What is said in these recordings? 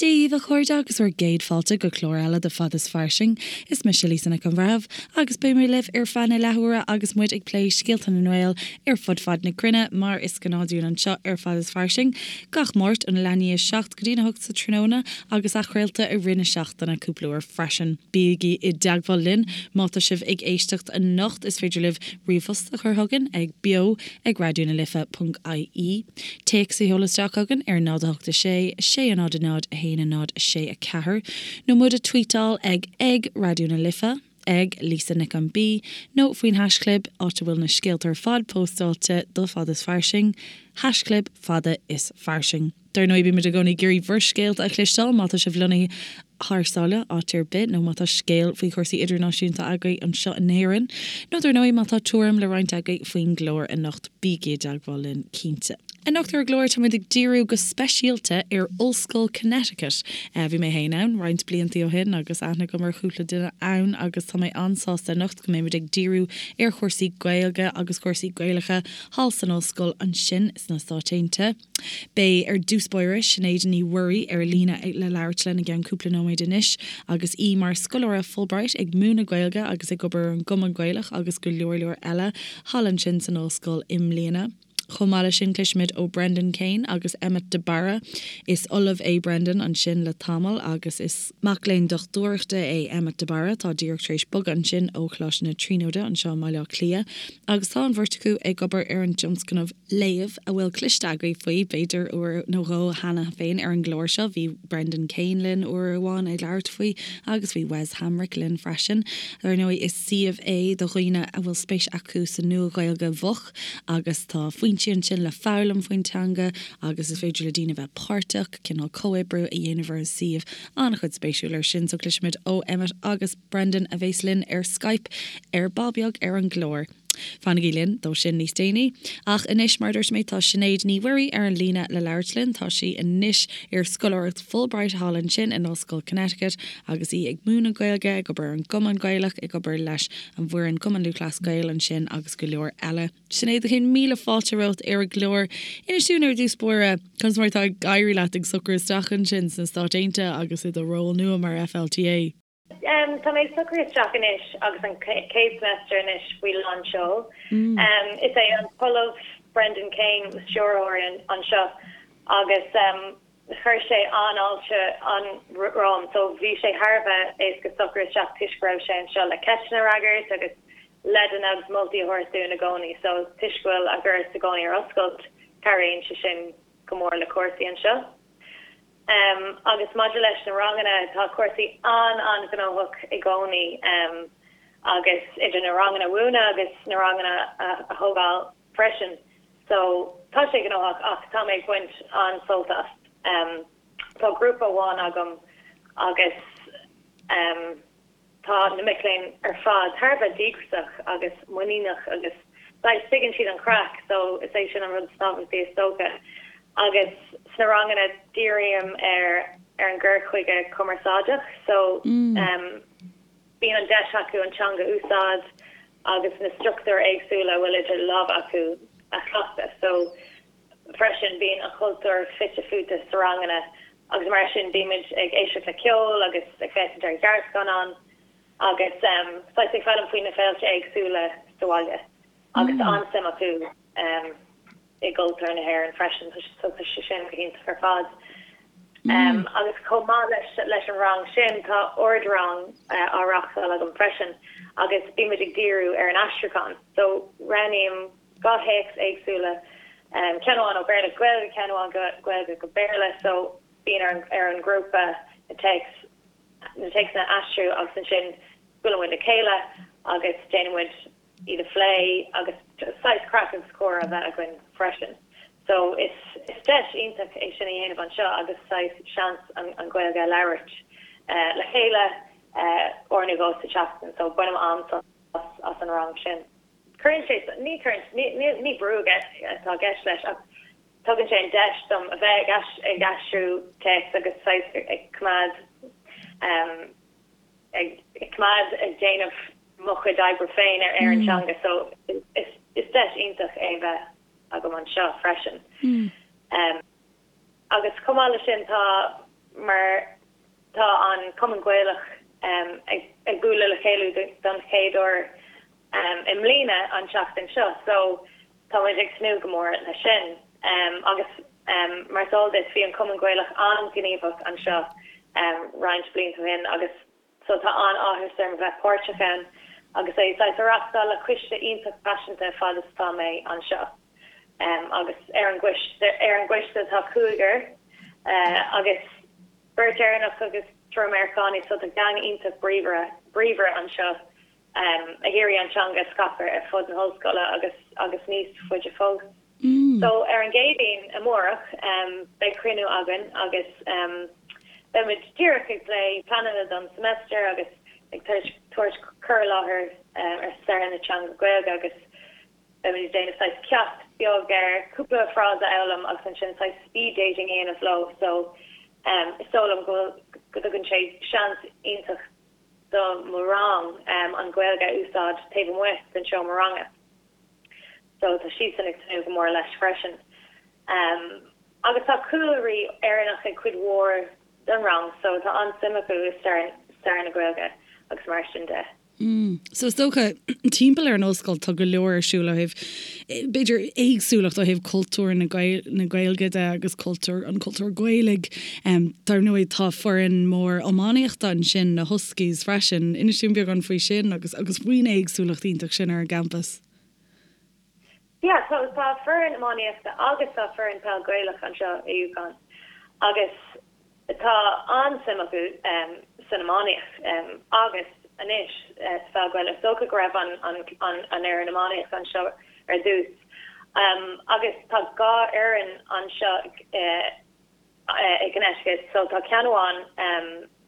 Dia dhaoibh a chairde agus bhur gcéad fáilte go clár eile de Fad is Fairsing. Is mise Lisa Nic an Bhreithimh agus beidh mé libh ar feadh na leathuaire agus muid ag plé scéalta na nGael ar fud fad na cruinne mar is gnáth dúinn anseo ar Fad is Fairsing gach Máirt óna leath i ndiaidh 7 go dtína 8 sa tráthnóna agus athchraolta i rith na seachtaine cúpla uair freisin. Bígí i dteagmháil linn má tá sibh ag éisteacht anocht, is féidir libh ríomhphost a chur chugainn ag beo ag raidió na life ponc ie. Téacs a sheoladh isteach chugainn ar 0 8 6 6 0 0 1 0 6 4 nó muid a tweetáil ag ag Raidió na Life, ag Lisa Nic an B nó faoin haischlib, áit a bhfuil na scéalta ar fad póstáilte do Fad is Fairsing, haischlib Fada is Fairsing. Dar ndóigh, bímid i gcónaí ag iarraidh bhur scéalta a chloisteáil má tá sibh lonnaithe thar sáile, áit ar bith, nó má tá scéal faoi chúrsaí idirnáisiúnta agaibh anseo in Éirinn, nó dar ndóigh má tá tuairim le roinnt agaibh faoin gclár anocht, bígí i dteagmháil linn, cinnte. Anocht ar an gclár táimid ag díriú go speisialta ar Ollscoil Connecticut. Bhí mé féin ann roinnt bliantaí ó shin agus aithne agam ar chúpla duine ann agus tá mé an-sásta anocht go mbeimid ag díriú ar chúrsaí Gaeilge agus cúrsaí Gaelacha thall san ollscoil ansin sna Stáit Aontaithe. Beidh, ar dtús báire, Sinéad Ní Mhuirí ar líne le labhairt linn i gceann cúpla nóiméad anois agus í mar scoláire Fulbright ag múineadh Gaeilge agus ag obair ar an gCumann Gaelach agus go leor leor eile thall ansin san ollscoil i mbliana. Chomh maith leis sin cloisfimid ó Brendan Kane agus Emmet de Barra. Is ollamh é Brendan ansin le tamall agus is mac léinn dochtúireachta é Emmet de Barra atá díreach tar éis bogadh ansin ó Choláiste na Tríonóide anseo i mBaile Átha Cliath agus tá an bheirt acu ag obair ar an dtionscnamh Léamh, a bhfuil cloiste agaibh faoi, b'fhéidir, uair nó dhó cheana féin ar an gclár seo. Bhí Brendan Kane linn uair amháin ag labhairt faoi agus bhí Wes Hamrick linn freisin. Dar ndóigh, is suíomh é do dhaoine a bhfuil spéis acu sa Nua-Ghaeilge Mhoch agus tá foinsí ansin le foghlaim faoin teanga agus is féidir le daoine bheith páirteach, cineál comhoibriú a dhéanamh ar an suíomh. An-chuid spéisiúil ar sin, so cloisfimid ó Emmet agus Brendan a bheas linn ar Skype ar ball beag ar an gclár. Fanaigí linn dó sin níos déanaí. Ach anois, mar a dúirt mé, tá Sinéad Ní Mhuirí ar an líne le labhairt linn. Tá sí anois ar scoláireacht Fulbright thall ansin in Ollscoil Connecticut agus í ag múineadh Gaeilge, ag obair ar an gCumann Gaelach, ag obair leis an bhfoireann Cumann Lúthchleas Gael ansin agus go leor eile. Sinéad, céad míle fáilte romhat ar an gclár. Inis dúinn ar dtús báire, conas mar atá ag éirí leat ag socrú isteach ansin sna Stáit Aontaithe agus i do ról nua mar FLTA? Tá mé ag socrú isteach anois agus an chéad semester anois faoi lán seoil. Is é an tOllamh Brendan Kane mo stiúrthóir anseo agus chuir sé an-fháilte an-romham so bhí sé thar a bheith éasca socrú isteach toisc go raibh sé anseo le ceisteanna a fhreagairt agus leideanna agus moltaí a thabhairt dúinn i gcónaí so toisc go bhfuil a dhoras i gcónaí ar oscailt cabhraíonn sé sin go mór le cúrsaí anseo. Agus maidir leis na ranganna, tá cúrsaí an-an-ghnóthach i gcónaí agus idir na ranganna a mhúineadh agus na ranganna a thógáil freisin. So, tá sé gnóthach ach tá mé ag baint an-sult as. Tá grúpa amháin agam agus. Tá na mic léinn ar fad thar a bheith díograiseach agus muiníneach agus saghas tuigeann siad an chraic so is é sin an rud is tábhachtaí is dócha. Agus sna ranganna dírím ar ar an gcur chuige cumarsáideach so bíonn an deis acu an teanga a úsáid agus na struchtúir éagsúla a bhfuil idir lámha acu a chleachtadh so Freisin, bíonn an cultúr fite fuaite sna ranganna agus mar sin bímid ag éisteacht le ceol agus ag féachaint ar ghearrscannáin agus saghas ag foghlaim faoi na féilte éagsúla sa bhaile agus tá an-suim acu i gcultúr na hÉireann freisin so tá sé sin go hiontach ar fad. Agus chomh maith leis an rang sin tá ard-rang á reáchtáil agam freisin agus bímid ag díriú ar an aistriúchán so roghnaím 2 théacs éagsúla, ceann amháin ó Bhéarla go Gaeilge, ceann amháin Gaeilge go Béarla, so bíonn ar an ar an ngrúpa na téacs na téacsanna a aistriú agus ansin buaileann muid le chéile agus déanann muid iad a phlé agus saghas craic agus comhrá a bheith againn freisin. So is is deis iontach é sin a dhéanamh anseo agus saghas seans an an Ghaeilge a labhairt le chéile uair nó dhó sa tseachtain so bainim an-sult as an rang sin. Cuireann sé, ní cuireann, ní, ní brú atá i gceist leis ach tugann sé an deis dom a bheith ag aistriú téacs agus saghas ag coimeád, ag coimeád ag déanamh mo chuid oibre féin ar an teanga so is deis iontach é bheith agam anseo freisin. Agus chomh maith leis sin tá, mar. Cumann Gaelach ag bualadh le chéile don chéad uair i mbliana an tseachtain seo so tá muid ag tnúth go mór leis sin. Agus mar is eol duit bhí an Cumann Gaelach an-ghníomhach anseo roinnt blianta ó shin agus so tá an-áthas orm a bheith páirteach ann agus é saghas a reachtáil le coiste iontach paiseanta fad is atá mé anseo. Agus ar an gcoiste ar an gcoiste tá cúigear agus beirt Éireannach agus triúr Meiriceánaigh so tá gang iontach bríomhar bríomhar anseo ag iarraidh an teanga a scaipeadh ar fud na hollscoile agus agus níos faide fós. So ar an gCéadaoin amárach beidh cruinniú againn agus beimid díreach ag plé pleananna don semester agus ag tabhairt cur i láthair ar stair na teanga Gaeilge agus beimid ag déanamh saghas ceacht beag ar cúpla frása a fhoghlaim agus ansin saghas speed dating a dhéanamh leo so is dóigh liom go go dtugann sé seans iontach do mo rang an Ghaeilge a úsáid taobh amuigh den seomra ranga. So tá siadsan ag tnúth go mór leis freisin. Agus tá cúlraí Éireannach ag cuid mhór den rang so tá an-suim acu i stair na Gaeilge agus mar sin de. So is dócha, timpeall ar an ollscoil tá go leor ar siúl ó thaobh, b'fhéidir, éagsúlacht ó thaobh cultúr na Gaeilge de agus cultúr, an cultúr Gaelaigh. Dar ndóigh tá foireann mór iománaíochta ansin, na Huskies freisin. Inis dúinn beagán faoi sin agus agus faoin éagsúlacht iontach sin ar an gcampas. Yeah, so tá foireann iománaíochta agus tá foireann peil Gaelach anseo i UConn agus Tá an-suim acu san iománaíocht agus anois sa pheil Ghaelach. Is dócha go raibh an fhoireann iománaíochta anseo ar dtús. Agus tá 2 fhoireann anseo i gConnecticut. So tá ceann amháin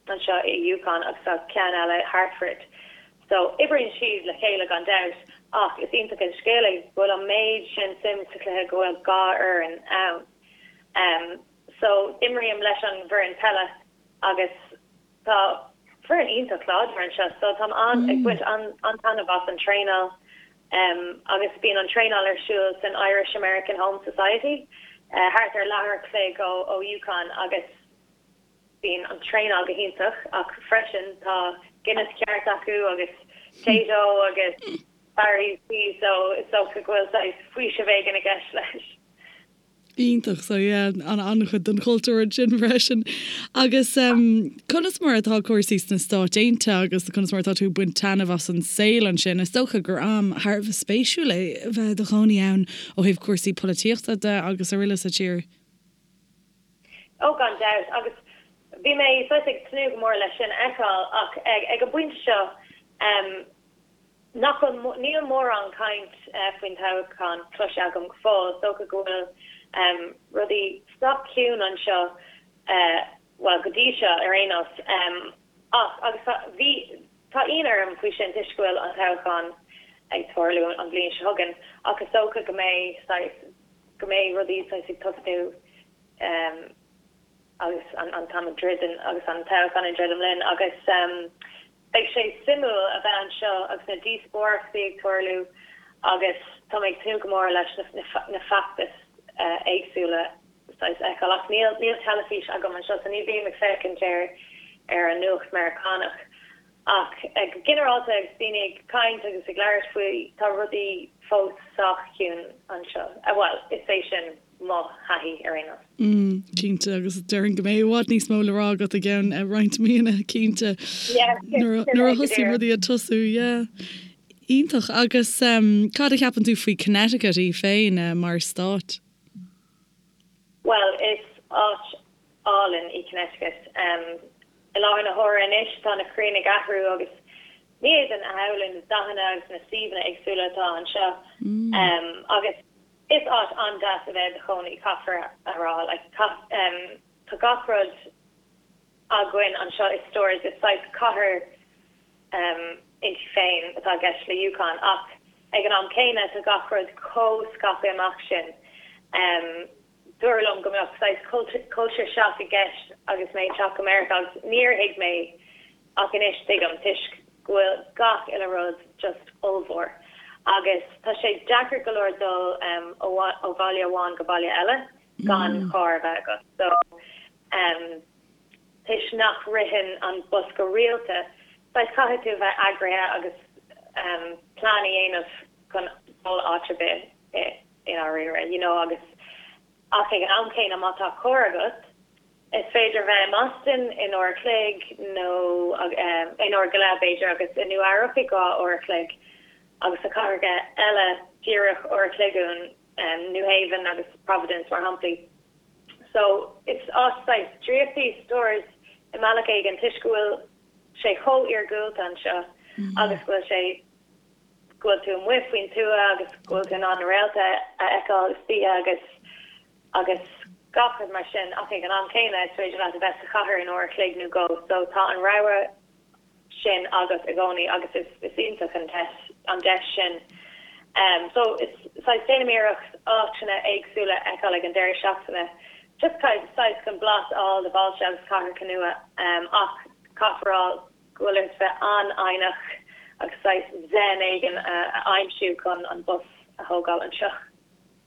anseo i UConn agus tá ceann eile i Hartford. So oibríonn siad le chéile gan dabht ach is iontach an scéal é go bhfuil an méid sin suim sa chluiche go bhfuil 2 fhoireann ann. So, imrím leis an bhfoireann peile agus tá foireann iontach láidir anseo so táim an, ag baint an-taitneamh as an traenáil agus bíonn an traenáil ar siúl san Irish American Home Society thart ar leathuair a chloig ó ó UConn agus bíonn an traenáil go hiontach ach freisin tá Guinness ceart acu agus Tayto agus Barry's Tea so is dócha go bhfuil saghas faoiseamh éigin i gceist leis. Iontach, so yeah, an-chuid den chultúr ansin freisin. Agus conas mar atá cúrsaí sna Stáit Aontaithe agus conas mar atá tú ag baint taitneamh as an saol ansin? Is dócha gur am thar a bheith spéisiúil é a bheith i do chónaí ann ó thaobh cúrsaí polaitíochta de agus araile sa tír. Ó gan dabht, agus bhí mé saghas ag tnúth go mór leis sin a fheiceáil ach ag an bpointe seo, Nach bhfuil, níl mórán caint faoin toghchán cloiste agam go fóill. Is dócha go bhfuil rudaí sách ciúin anseo, bhuel, go dtí seo ar aon nós. Ach, agus tá, bhí, tá ionadh orm faoi sin toisc go bhfuil an toghchán ag tarlú an bhliain seo chugainn. Ach is dócha go mbeidh saghas, go mbeidh rudaí saghas ag tosnú agus an t-am ag druidim, agus an toghchán ag druidim linn agus. Beidh sé suimiúil a bheith anseo agus na díospóireachtaí ag tarlú agus tá mé ag tnúth go mór leis na feachtais éagsúla saghas a fheiceáil. Ach níl níl teilifís agam anseo so ní bhím ag féachaint ar ar an nuacht Meiriceánach. Ach go ginearálta agus daoine ag caint agus ag labhairt faoi tá rudaí fós sách ciúin anseo. Bhuel, is é sin mo thaithí ar aon nós. Mm, cinnte, agus déarfainn go mbeidh i bhfad níos mó le rá agat i gceann roinnt míonna, cinnte. Yeah, Nuair a thosaíonn rudaí ag tosú, yeah. Iontach. Agus cad a cheapann tú faoi Connecticut í féin mar stát? Bhuel, is áit álainn í Connecticut. I láthair na huaire anois tá na crainn ag athrú agus ní fhéadfainn a shamhlú na dathanna agus na suíomhanna éagsúla atá anseo. Agus Is áit an-deas a bheith i do chónaí, caithfear a rá. Like, tá gach rud againn anseo i Storrs, is saghas cathair inti féin atá i gceist le UConn ach ag an am céanna tá gach rud chomh scaipthe amach sin. Dúradh liom go mbeadh saghas culture shock i gceist agus mé ag teacht go Meiriceá agus níor thuig mé Ach anois tuigim, toisc go bhfuil gach uile rud just ollmhór. Agus tá sé deacair go leor dul ó bhaile amháin go baile eile gan carr a bheith agat. So, toisc nach ritheann an bus go rialta, saghas caithfidh tú a bheith eagraithe agus plean a dhéanamh chun dul áit ar bith i ndáiríre, you know, agus ach ag an am céanna má tá carr agat, is féidir bheith i mBoston in uair a chloig nó in uair go leith b'fhéidir agus i Nua Eabhrac i 2 uair a chloig agus na cathracha eile díreach uair a chloig uainn, New Haven agus Providence mar shamplaí. So is áit saghas draíochta í Storrs i mbealach éigin toisc go bhfuil sé chomh iargúlta anseo agus go bhfuil sé, go bhfuil tú amuigh faoin tuath agus go bhfuil tú in ann na réalta a fheiceáil istoíche agus agus gach rud mar sin ach ag an am céanna is féidir leat a bheith sa chathair in uair a chloig nó dhó so tá an rogha sin agat i gcónaí agus is is iontach an deis an deis sin. So is saghas déanaim iarracht áiteanna éagsúla a fheiceáil ag an deireadh seachtaine just saghas chun blas a fháil de bhailte agus cathracha nua ach caithfear a rá go bhfuil ort bheith an-fhoighneach agus saghas zen éigin a aimsiú chun an bus a thógáil anseo.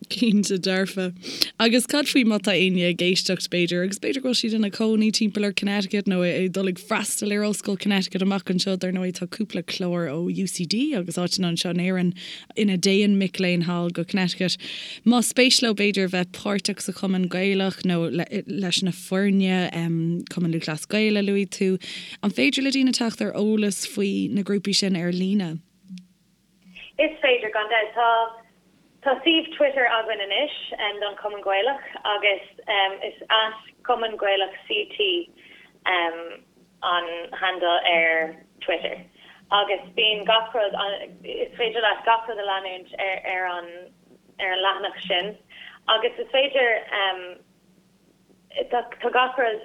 Cinnte dearfa. Agus cad faoi má tá éinne ag éisteacht, b'fhéidir, agus b'fhéidir go bhfuil siad ina cónaí timpeall ar Connecticut nó ag dul ag freastal ar Ollscoil Connecticut amach anseo, dar ndóigh tá cúpla clár ó UCD agus áiteanna anseo in Éirinn ina dtéann mic léinn thall go Connecticut. Más spéis leo b'fhéidir bheith páirteach sa Chumann Gaelach nó leis na foirne, Cumann Lúthchleas Gael a luaigh tú, an féidir le daoine teacht ar eolas faoi na grúpaí sin ar líne? Is féidir, gan dabht. Tá Tá suíomh Twitter againn anois don Chumann Gaelach agus is @CumannGaelachCT an handle ar Twitter agus bíonn gach rud, is féidir leat gach rud a leanúint ar an ar an leathanach sin agus is féidir, tá gach rud.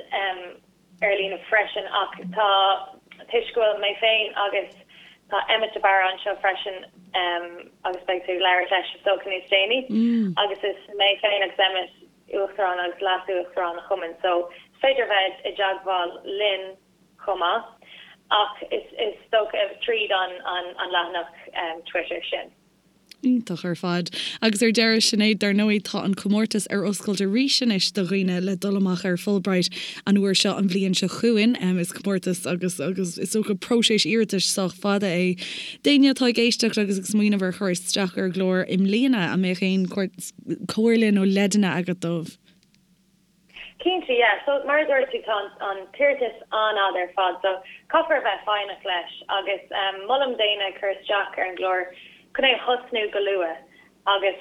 ar líne freisin ach tá, toisc go bhfuil mé féin agus tá Emmet de Barra anseo freisin agus beidh tú ag labhairt leis is dócha níos déanaí agus is mé féin agus Emmet Uachtarán agus Leas-Uachtarán an Chumainn so is féidir a bheith i dteagmháil linn chomh maith ach is dócha tríd an leathanach Twitter sin. Iontach ar fad. Agus ar deireadh, Sinéad, dar ndóigh tá an comórtas ar oscailt arís anois do dhaoine le dul amach ar Fulbright an uair seo an bhliain seo chugainn. Is comórtas agus agus is dócha próiseas iarratais sách fada é. D'éinne atá ag éisteacht agus ag smaoineamh ar chur isteach ar an gclár i mbliana, an mbeadh aon comhairle nó leideanna agat dóibh? Cinnte, yeah. So, mar a dúirt tú, tá an t-iarratas an-fhada ar fad, so caithfear a bheith foighneach leis agus molaim d'éinne cur isteach ar an gclár chun é a thosnú go luath agus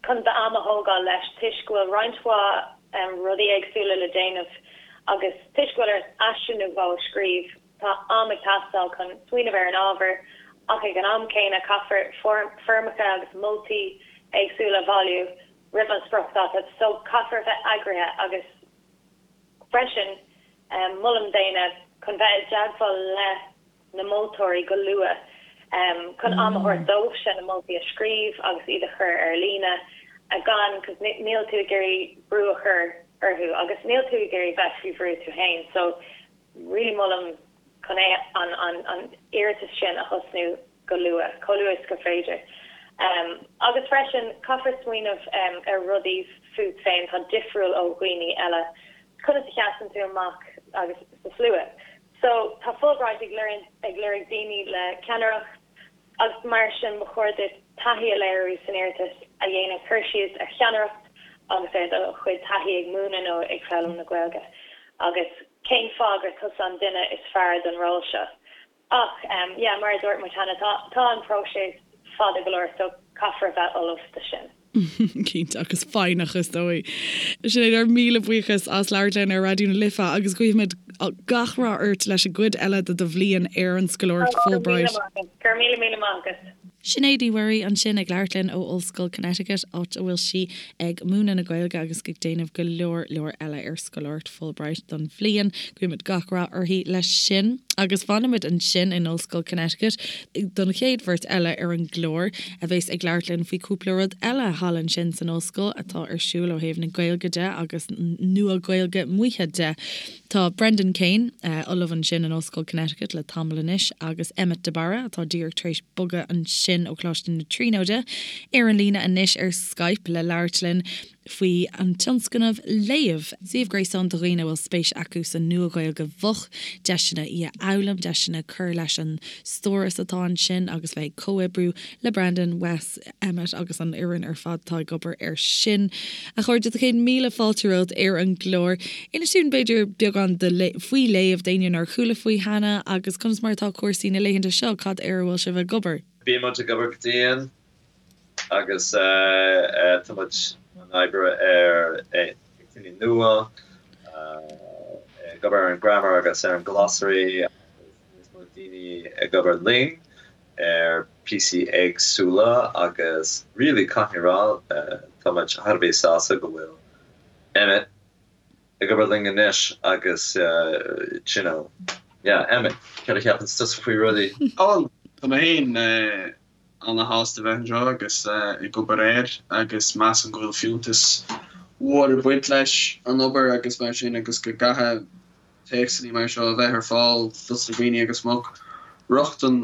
chun d'am a thógáil leis toisc go bhfuil roinnt mhaith rudaí éagsúla le déanamh agus toisc go bhfuil ort aiste nó dhó a scríobh, tá am ag teastáil chun smaoineamh ar an ábhar ach ag an am céanna caithfear foirmeacha agus moltaí éagsúla a bhailiú. roimh an spriocdháta so caithfear a bheith eagraithe agus freisin molaim d'éinne chun bheith i dteagmháil le na moltóirí go luath chun am a thabhairt dóibhse na moltaí a scríobh agus iad a chur ar líne gan cos níl tú ag iarraidh brú a chur orthu agus níl tú ag iarraidh bheith faoi bhrú tú féin so really molaim chun é an an iarratas sin a thosnú go luath, chomh luath is gur féidir. Agus freisin, caithfear smaoineamh ar rudaí fút féin atá difriúil ó dhaoine eile. Conas a sheasann tú amach agus sa slua? So, tá Fulbright ag ag lorg daoine le ceannaireacht agus mar sin ba chóir duit taithí a léiriú san iarratas a dhéanann cur síos ar cheannaireacht agus ar do chuid taithí ag múineadh nó ag foghlaim na Gaeilge agus cén fáth gur tusa an duine is fearr don ról seo. Ach, yeah, mar a dúirt muid cheana, tá, tá an próiseas fada go leor so caithfear a bheith ullamh do sin. Cinnte, agus foighneach is dóigh. Sinéad, ár míle buíochas as labhairt linn ar Raidió na Life agus guímid gach rath ort leis an gcuid eile de do bhliain ar an scoláireacht Fulbright. Go raibh míle míle maith agat. Sinéad Uí Mhuirí ansin ag labhairt linn ó Ollscoil Connecticut, áit a bhfuil sí ag múineadh na Gaeilge agus ag déanamh go leor leor eile ar scoláireacht Fulbright don bhliain. Guímid gach rath uirthi leis sin. Agus fanfaimid ansin in Ollscoil Connecticut don chéad bheirt eile ar an gclár a bheas ag labhairt linn faoi chúpla rud eile thall ansin san ollscoil atá ar siúl ó thaobh na Gaeilge de agus Nua-Ghaeilge Mhaoithe de. Tá Brendan Kane, ollamh ansin in Ollscoil Connecticut le tamall anois, agus Emmet de Barra, atá díreach tar éis bogadh ansin ó Choláiste na Tríonóide, ar an líne anois ar Skype le labhairt linn. faoi an tionscnamh Léamh, suíomh gréasáin do dhaoine a bhfuil spéis acu sa Nua-Ghaeilge Mhoch, deiseanna í a fhoghlaim, deiseanna cur leis an stóras atá ansin agus bheith ag comhoibriú le Brendan, Wes, Emmet agus an fhoireann ar fad atá ag obair air sin. A chairde, tá 100,000 fáilte romhat ar an gclár. Inis dúinn, b'fhéidir, beagán faoi Léamh, d'éinne nár chuala faoi cheana, agus conas mar atá cúrsaí na laethanta seo, cad air a bhfuil sibh ag obair? Bíonn muid ag obair go dian agus tá muid ag obair ar théacsanna nua, ag obair ar an grammar agus ar an glossary agus níos mó daoine ag obair linn ar píosaí éagsúla agus really caithfidh mé a rá tá muid thar a bheith sásta go bhfuil Emmet ag obair linn anois agus you know yeah Emmet céard a cheapann tusa faoi rudaí? Bhuel tá mé féin ana-shásta bheith anseo agus ag obair air agus measaim go bhfuil fiúntas mhór ag baint leis an obair agus mar sin agus go gcaithfidh téacsanna mar seo a bheith ar fáil dos na daoine agus go mbeadh rochtain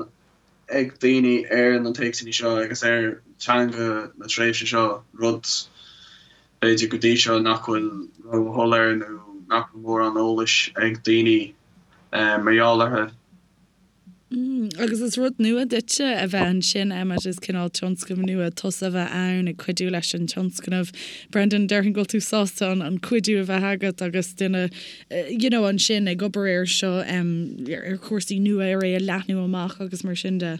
ag daoine ar na téacsanna seo agus ar teanga na tréimhse seo, rud b'fhéidir go dtí seo nach bhfuil ró-shoiléir nó nach bhfuil mórán eolais ag daoine mar gheall orthu. Agus is rud nua duitse a bheith ansin, Emmet, is cineál tionscnamh nua tusa a bheith ann ag cuidiú leis an tionscnamh. Brendan, déarfainn go bhfuil tú sásta an cuidiú a bheith agat agus duine you know ansin ag obair air seo, ar chúrsaí nua, ar é a leathnú amach agus mar sin de.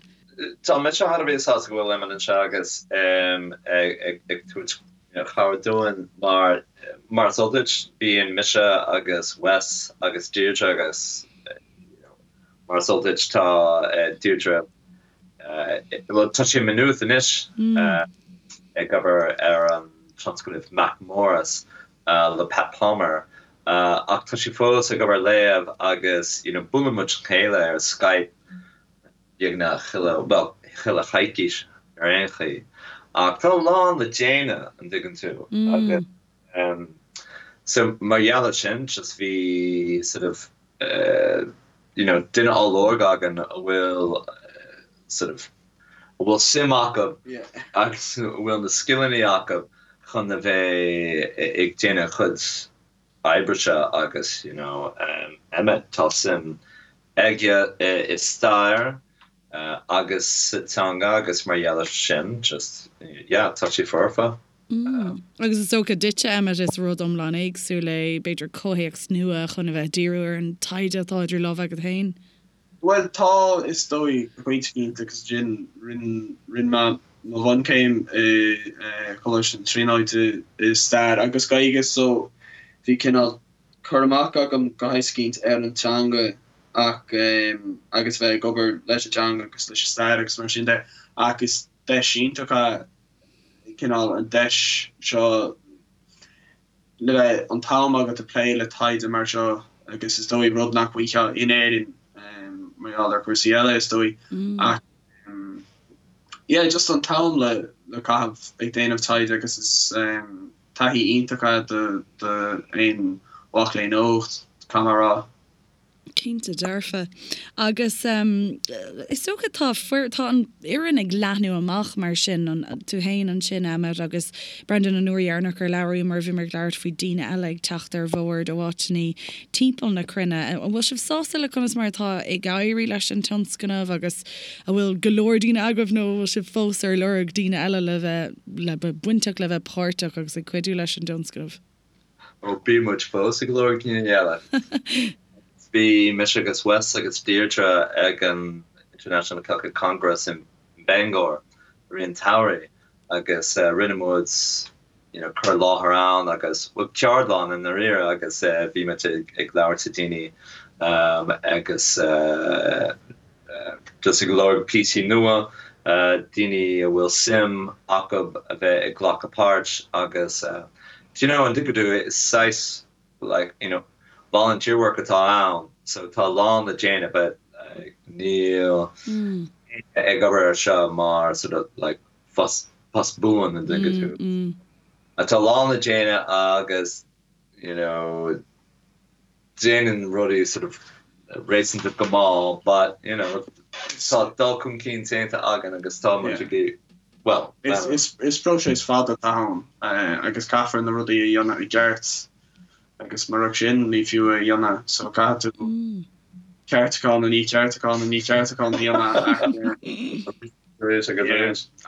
Tá mise thar a bheith sásta go bhfuil Emmet anseo agus ag tabhairt cabhair dúinn mar, mar is eol duit, bíonn mise agus Wes agus Deirdre agus you know, Mar is eol duit, tá Deirdre, bhuel, tá sí i Maynooth anois ag obair ar an tionscnamh MacMorris le Pat Palmer ach tá sí fós ag obair ar Léamh agus you know buaileann muid le chéile ar Skype beagnach chuile, bhuel, chuile choicís ar aon chaoi. Ach tá a lán le déanamh, an dtuigeann tú, agus so mar gheall air sin just bhí sort of you know duine á lorg againn a bhfuil sort of a bhfuil suim acu agus a bhfuil na scileanna acu chun a bheith ag déanamh chuid oibre seo agus you know Emmet tá suim aige i stair agus sa teanga agus mar gheall air sin just yeah tá sé foirfe. Agus is dócha duitse, Emmet, is rud iomlán éagsúil é, b'fhéidir comhthéacs nua chun a bheith ag díriú ar an taighde atá idir lámha agat féin. Bhuel, tá, is dóigh, go pointe éicint agus ansin rinne mé mo bhunchéim i Coláiste na Tríonóide i Stair agus Gaeilge so bhí cineál cur amach agam go háit éicint ar an teanga ach agus bheith ag obair leis an teanga agus leis an stair agus mar sin de ach is deis iontach é cineál an deis seo le bheith an t-am agat ag plé le taighde mar seo agus is dóigh rud nach bhfaighfeá in Éirinn mar gheall ar chúrsaí eile is dóigh ach yeah just an t-am le le caitheamh ag déanamh taighde agus is taithí iontach é do do aon mhac léinn óg caithfidh mé a rá. Cinnte dearfa. Agus is dócha tá tá an fhoireann ag leathnú amach mar sin, tú féin ansin Emmet agus Brendan an uair dheireanach ar labhraíomar bhíomar ag labhairt faoi daoine eile ag teacht ar bhord ó áiteanna timpeall na cruinne. An bhfuil sibh sásta le conas mar atá ag éirí leis an tionscnamh agus an bhfuil go leor daoine agaibh nó an bhfuil sibh fós ar lorg daoine eile le bheith le bheith bainteach le bheith páirteach agus ag cuidiú leis an dtionscnamh? Ó, bíonn muid fós ag lorg daoine eile. Bhí mise agus Wes agus Deirdre ag an International Celtic Congress in Bangor i rith an tsamhraidh agus rinne muid you know cur i láthair ann agus, bhuel, ceardlann i ndáiríre agus bhí muid ag labhairt le daoine agus just ag lorg píosaí nua, daoine a bhfuil suim acu a bheith ag glacadh páirt agus do you know an dtuigeann tú is saghas like you know volunteer work atá ann so tá a lán le déanamh but níl éinne ag obair ar seo mar sort of like post post buan an dtuigeann tú. Tá a lán le déanamh agus you know déanann rudaí sort of réasúnta go mall but you know tá dul chun cinn déanta againn agus tá muid ag. Well, is próiseas fada atá ann agus caithfear na rudaí a dhéanamh i gceart agus murach sin ní fiú é a dhéanamh so caithfidh tú ceartúchán i ndiaidh ceartúchán i ndiaidh ceartúchán a dhéanamh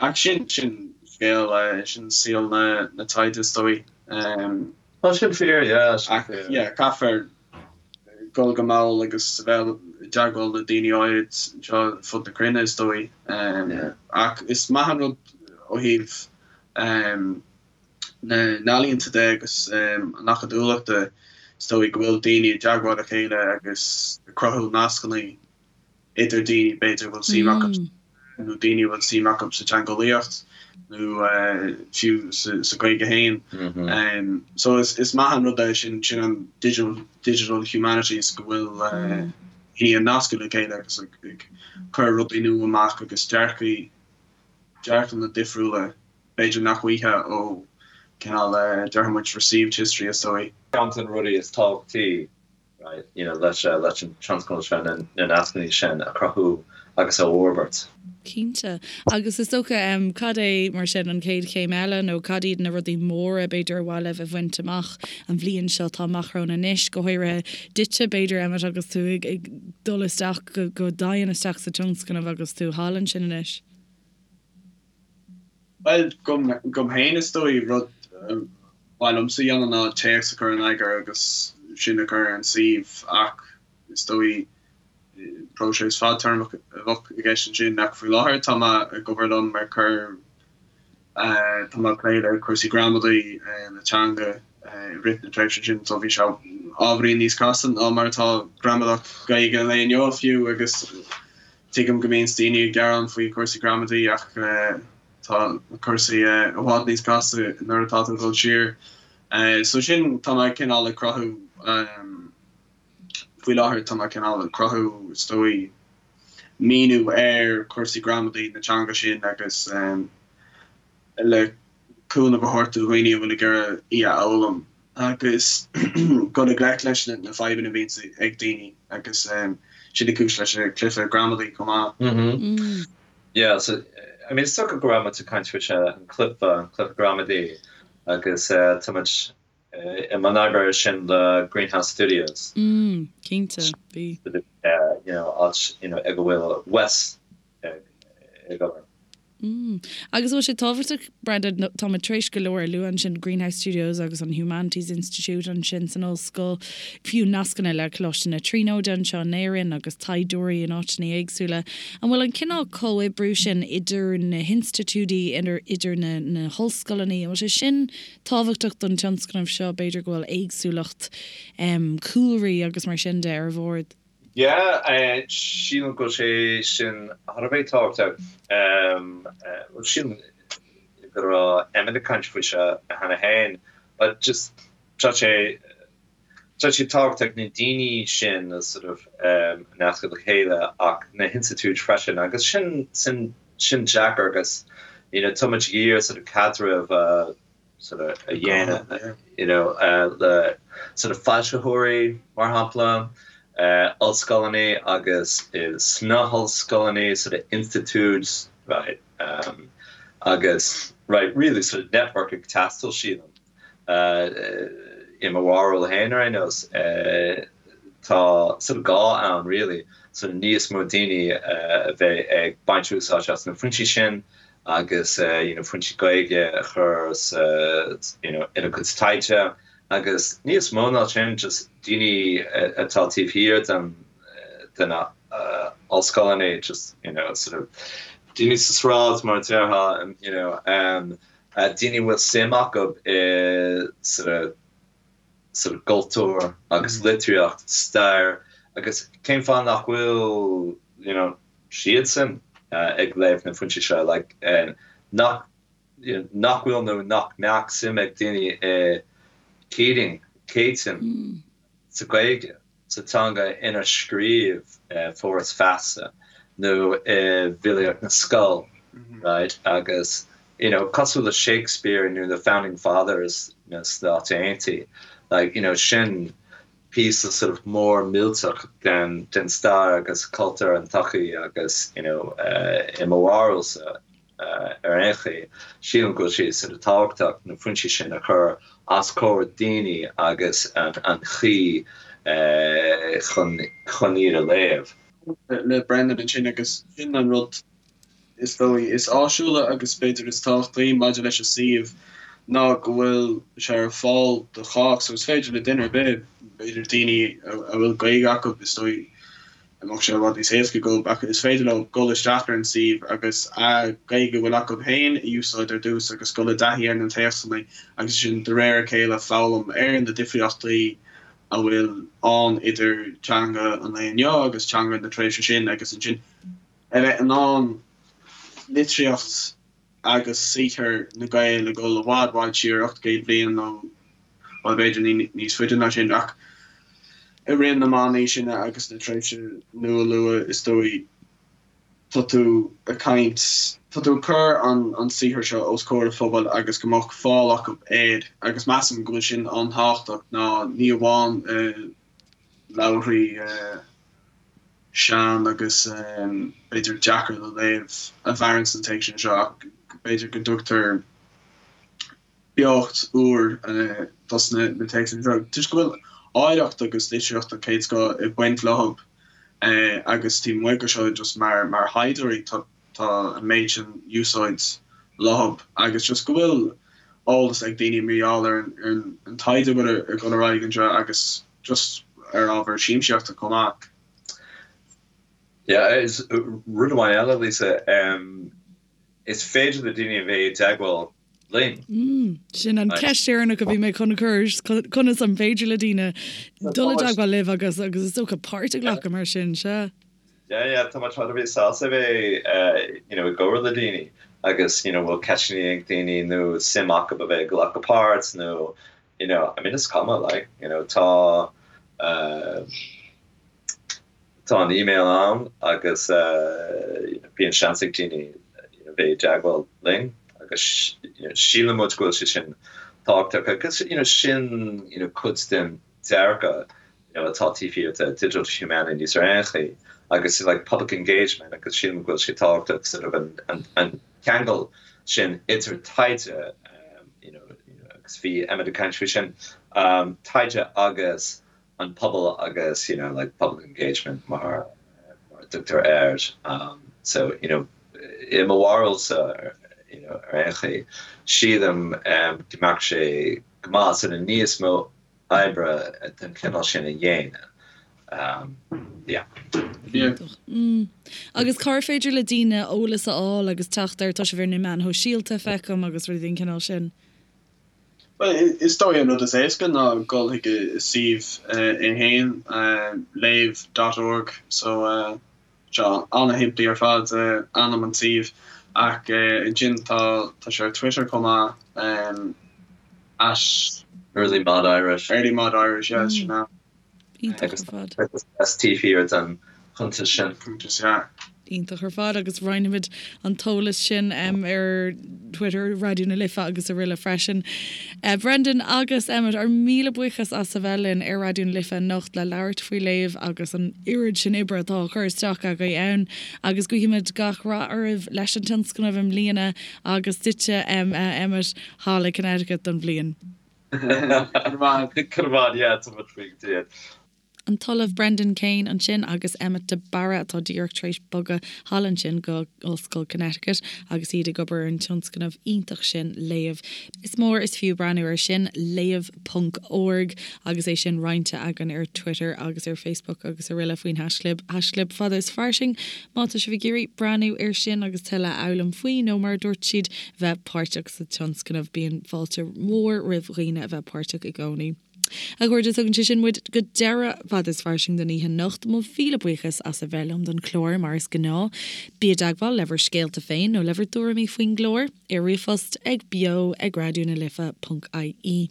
ach sin sin scéal sin saol na taighde is dóigh. Tá sin fíor, yeah, sin fíor. Yeah, caithfear dul go mall agus a bheith i dteagmháil le daoine áirid anseo ar fud na cruinne is dóigh. Ach is maith an rud ó thaobh na n-ealaíonta de agus an acadúlachta is dóigh go bhfuil daoine i dteagmháil le chéile agus ag cruthú nascanna idir daoine b'fhéidir a bhfuil suim acu nó daoine a bhfuil suim acu sa teangeolaíocht nó fiú sa Ghaeilge féin. So is maith an rud é sin, sin an digital digital humanities go bhfuil daoine ag nascadh le chéile agus ag cur rudaí nua amach agus dearcaí dearcanna difriúla b'fhéidir nach bhfaighfeá ó cineál déarfaidh muid received history is dóigh. Ceann de na rudaí is tábhachtaí right, you know, leis leis an tionscnamh seo na nascanna sin a chruthú agus a fhorbairt. Cinnte. Agus is dócha, cad é mar sin an chéad chéim eile nó cad iad na rudaí móra b'fhéidir ar mhaith libh a bhaint amach an bhliain seo atá amach romhainn anois, go háirithe duitse b'fhéidir Emmet agus tú ag ag dul isteach go go domhain isteach sa tionscnamh agus tú thall ansin anois? Bhuel, dom féin is dóigh, rud ba mhaith liomsa a dhéanamh ná téacs a chur in eagar agus sin a chur ar an suíomh ach is dóigh próiseas fadtéarmach a bheadh i gceist ansin ach faoi láthair tá mé ag obair liom ar cur, tá mé ag plé le cúrsaí gramadaí na teanga i rith na tréimhse sin so bhí sé ábhairín níos casta ná mar atá gramadach Gaeilge an lae inniu fiú agus Tuigim go mbíonns daoine ag gearán faoi chúrsaí gramadaí ach tá cúrsaí i bhfad níos casta nuair atá tú ag dul siar. So sin, tá mé cineál ag cruthú, faoi láthair tá mé cineál ag cruthú is dóigh míniú ar chúrsaí gramadaí na teanga sin agus le cúnamh a thabhairt do dhaoine a bhfuil ag iarraidh í a fhoghlaim agus dul i ngleic leis na fadhbanna a bhíonns ag daoine agus sin an cúis leis an cluiche gramadaí chomh maith. Yeah, so I mean is dócha go raibh muid ag caint faoi seo, an cluiche, an cluiche gramadaí agus tá muid i mbun oibre ar sin le Greenhouse Studios. Mm, cinnte, bhí. You know, áit you know ag a bhfuil Wes ag obair. Mm. Agus an bhfuil sé tábhachtach, Brenda, tá muid tar éis go leor a lua ansin, Greenhouse Studios agus an Humanities Institute ansin san ollscoil, fiú nascanna le Coláiste na Tríonóide anseo in Éirinn agus taighdeoirí in áiteanna éagsúla. An bhfuil an cineál comhoibriú sin idir na hinstitiúidí, idir na na hollscoileanna, an bhfuil sé sin tábhachtach don tionscnamh seo, b'fhéidir go bhfuil éagsúlacht cúlraí agus mar sin de ar bhord? Yeah, sílim go bhfuil sé sin thar a bheith tábhachtach. Bhuel, sílim go raibh Emmet ag caint faoi seo cheana féin, but just tá sé tá sé tábhachtach na daoine sin a sort of nascadh le chéile ach na hinstitiúid freisin agus sin sin sin deacair agus you know tá muid ag iarraidh sort of caidreamh a sort of a dhéanamh you know le sort of foilsitheoirí mar shampla, ollscoileanna agus sna hollscoileanna sort of institiúid right agus right really sort of network ag teastáil sílim i mo bharúil féin ar aon nós tá sort of gá ann really sort of níos mó daoine a bheith ag baint úsáid as na foinsí sin agus you know foinsí Gaeilge a chur sa you know ina gcuid taighde agus níos mó ná sin just daoine atá taobh thiar den de na ollscoileanna just you know sort of daoine sa sráid mar a déarfá you know um, daoine a bhfuil suim acu i sort of sort of gcultúr agus litríocht, stair agus cén fáth nach bhfuil you know siadsan ag léamh na foinsí seo like nach you know nach bhfuil nó nach mbeadh suim ag daoine i Keating, Céitinn sa Ghaeilge, sa teanga inar scríobh Foras Feasa nó i bhfilíocht na scol right agus you know cosúil le Shakespeare nó the founding fathers na Stáit Aontaithe like you know sin píosa sort of mór millteach den den stair agus cultúr an tsochaí agus you know i mo bharúilsa. ar aon chaoi, sílim go bhfuil sé sort of tábhachtach na foinsí sin a chur os comhair daoine agus an chaoi chun chun iad a léamh. Le Brendan ansin agus sin an rud is dóigh is áisiúla agus b'fhéidir is tábhachtaí maidir leis an suíomh ná go bhfuil sé ar fáil do chách so is féidir le duine ar bith, b'fhéidir daoine a bhfuil Gaeilge acu is dóigh a mbeadh sé i bhfad níos éasca dóibh ach is féidir leo dul isteach ar an suíomh agus an Ghaeilge a bhfuil acu féin a úsáid ar dtús agus dul i dtaithí ar na téacsanna agus ansin de réir a chéile foghlaim ar na difríochtaí a bhfuil ann idir teanga an lae inniu agus teanga na tréimhse sin agus ansin a bheith in ann litríocht agus saothar na Gael ag dul i bhfad bhfad siar, 800 bliain nó, bhuel, b'fhéidir níos faide ná sin, ach i rith na meánaoiseanna agus na tréimhse nua luath, is dóigh, tá tú ag caint, tá tú ag cur an saothar seo os comhair an phobail agus go mbeadh fáil acu air agus measaim go bhfuil sin an-tábhachtach ná ní amháin leabharthaí sean agus b'fhéidir deacair le léamh a mhaireann sna téacsanna seo ach b'fhéidir go dtugtar beocht úr dos na téacsanna seo toisc go bhfuil áilleacht agus litríocht den chéad scoth ag baint leo agus taobh amuigh de seo just mar mar thaighdeoirí tá tá an méid sin úsáid leo agus just go bhfuil eolas ag daoine mar gheall ar an taighde a bhfuil ag dul ar aghaidh anseo agus just ar ábhar siamsaíochta chomh maith. Yeah, is rud amháin eile, Lisa, is féidir le daoine a bheith i dteagmháil linn. Mm, sin an ceist dheireanach a bhí mé chun a chur, conas an féidir le daoine dul i dteagmháil libh agus agus is dócha páirt a ghlacadh mar sin, sea. Yeah, yeah, tá muid thar a bheith sásta a bheith, you know, i gcomhrá le daoine agus, you know, bhfuil ceisteanna ag daoine nó suim acu a bheith ag glacadh páirt nó, you know, I mean, is cuma, like, you know, tá, tá an email ann agus, you know, bíonn seans ag daoine, you know, bheith i dteagmháil linn agus, you know, síleann muid go bhfuil sé sin tábhachtach agus, you know, sin, you know, cuid den dearcadh you know, atá taobh thiar de Digital Humanities ar aon chaoi agus like public engagement agus sílim go bhfuil sé tábhachtach sort of an, an, an ceangal sin idir taighde um, you know, you know, agus bhí Emmet ag caint faoi sin um, taighde agus an pobal agus you know, like public engagement mar, mar a dtugtar air um, so you know, i mo bharúilsa you know, ar aon chaoi sílim um, go mbeadh sé go maith sort of níos mó oibre den chineál sin a dhéanamh. Yeah. Mm. Agus cár féidir le daoine eolas a fháil agus teacht air? Tá sibh ar na meáin shóisialta, feicim, agus rudaí den chineál sin. Bhuel, is dóigh an rud is éasca ná dul chuig an suíomh é féin, léamh dot org, so Seo an-shimplí ar fad ainm an tsuímh ach ansin tá tá sé ar Twitter chomh maith at. Early Mod Irish. Early Mod Irish, yeah, sin é. Iontach ar fad. Agus S taobh thiar den chuntas sin. Cuntas, yeah. Iontach ar fad agus roinnfimid an t-eolas sin ar Twitter Raidió na Life agus araile freisin. Brendan agus Emmet, ár míle buíochas as a bheith linn ar Raidió na Life anocht le labhairt faoi Léamh agus an oiread sin oibre atá á cur isteach agaibh ann agus guímid gach rath oraibh leis an tionscnamh i mbliana agus duitse Emmet thall i Connecticut don bhliain. Go raibh maith, yeah, tá muid faoi go dtí. An tOllamh Brendan Kane ansin agus Emmet de Barra atá díreach tar éis bogadh thall ansin go Ollscoil Connecticut agus iad ag obair ar an tionscnamh iontach sin Léamh. Is mór is fiú breathnú air sin, léamh ponc org, agus é sin roinnte againn ar Twitter agus ar Facebook agus araile faoin haischlib, haischlib fada is fairsing. Má tá sibh ag iarraidh breathnú air sin agus tuilleadh a fhoghlaim faoi nó mar a dúirt siad, bheith páirteach sa tionscnamh, bíonn fáilte mhór roimh dhaoine a bheith páirteach i gcónaí. A chairde, tugann sé sin muid go deireadh Fada is Fairsing don oíche anocht. Mo mhíle buíochas as a bheith liom don chlár, mar is gnáth. Bí i dteagmháil le bhur scéalta féin nó le bhur dtuairimí faoin gclár ar ríomhphost ag beo ag raidió na life ponc ie.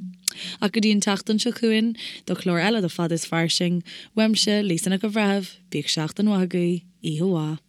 Ach go dtí an tseachtain seo chugainn do chlár eile de Fada is Fairsing, uaimse, Lisa Nic an Bhreithimh, bíodh seachtain mhaith agaibh, oíche mhaith.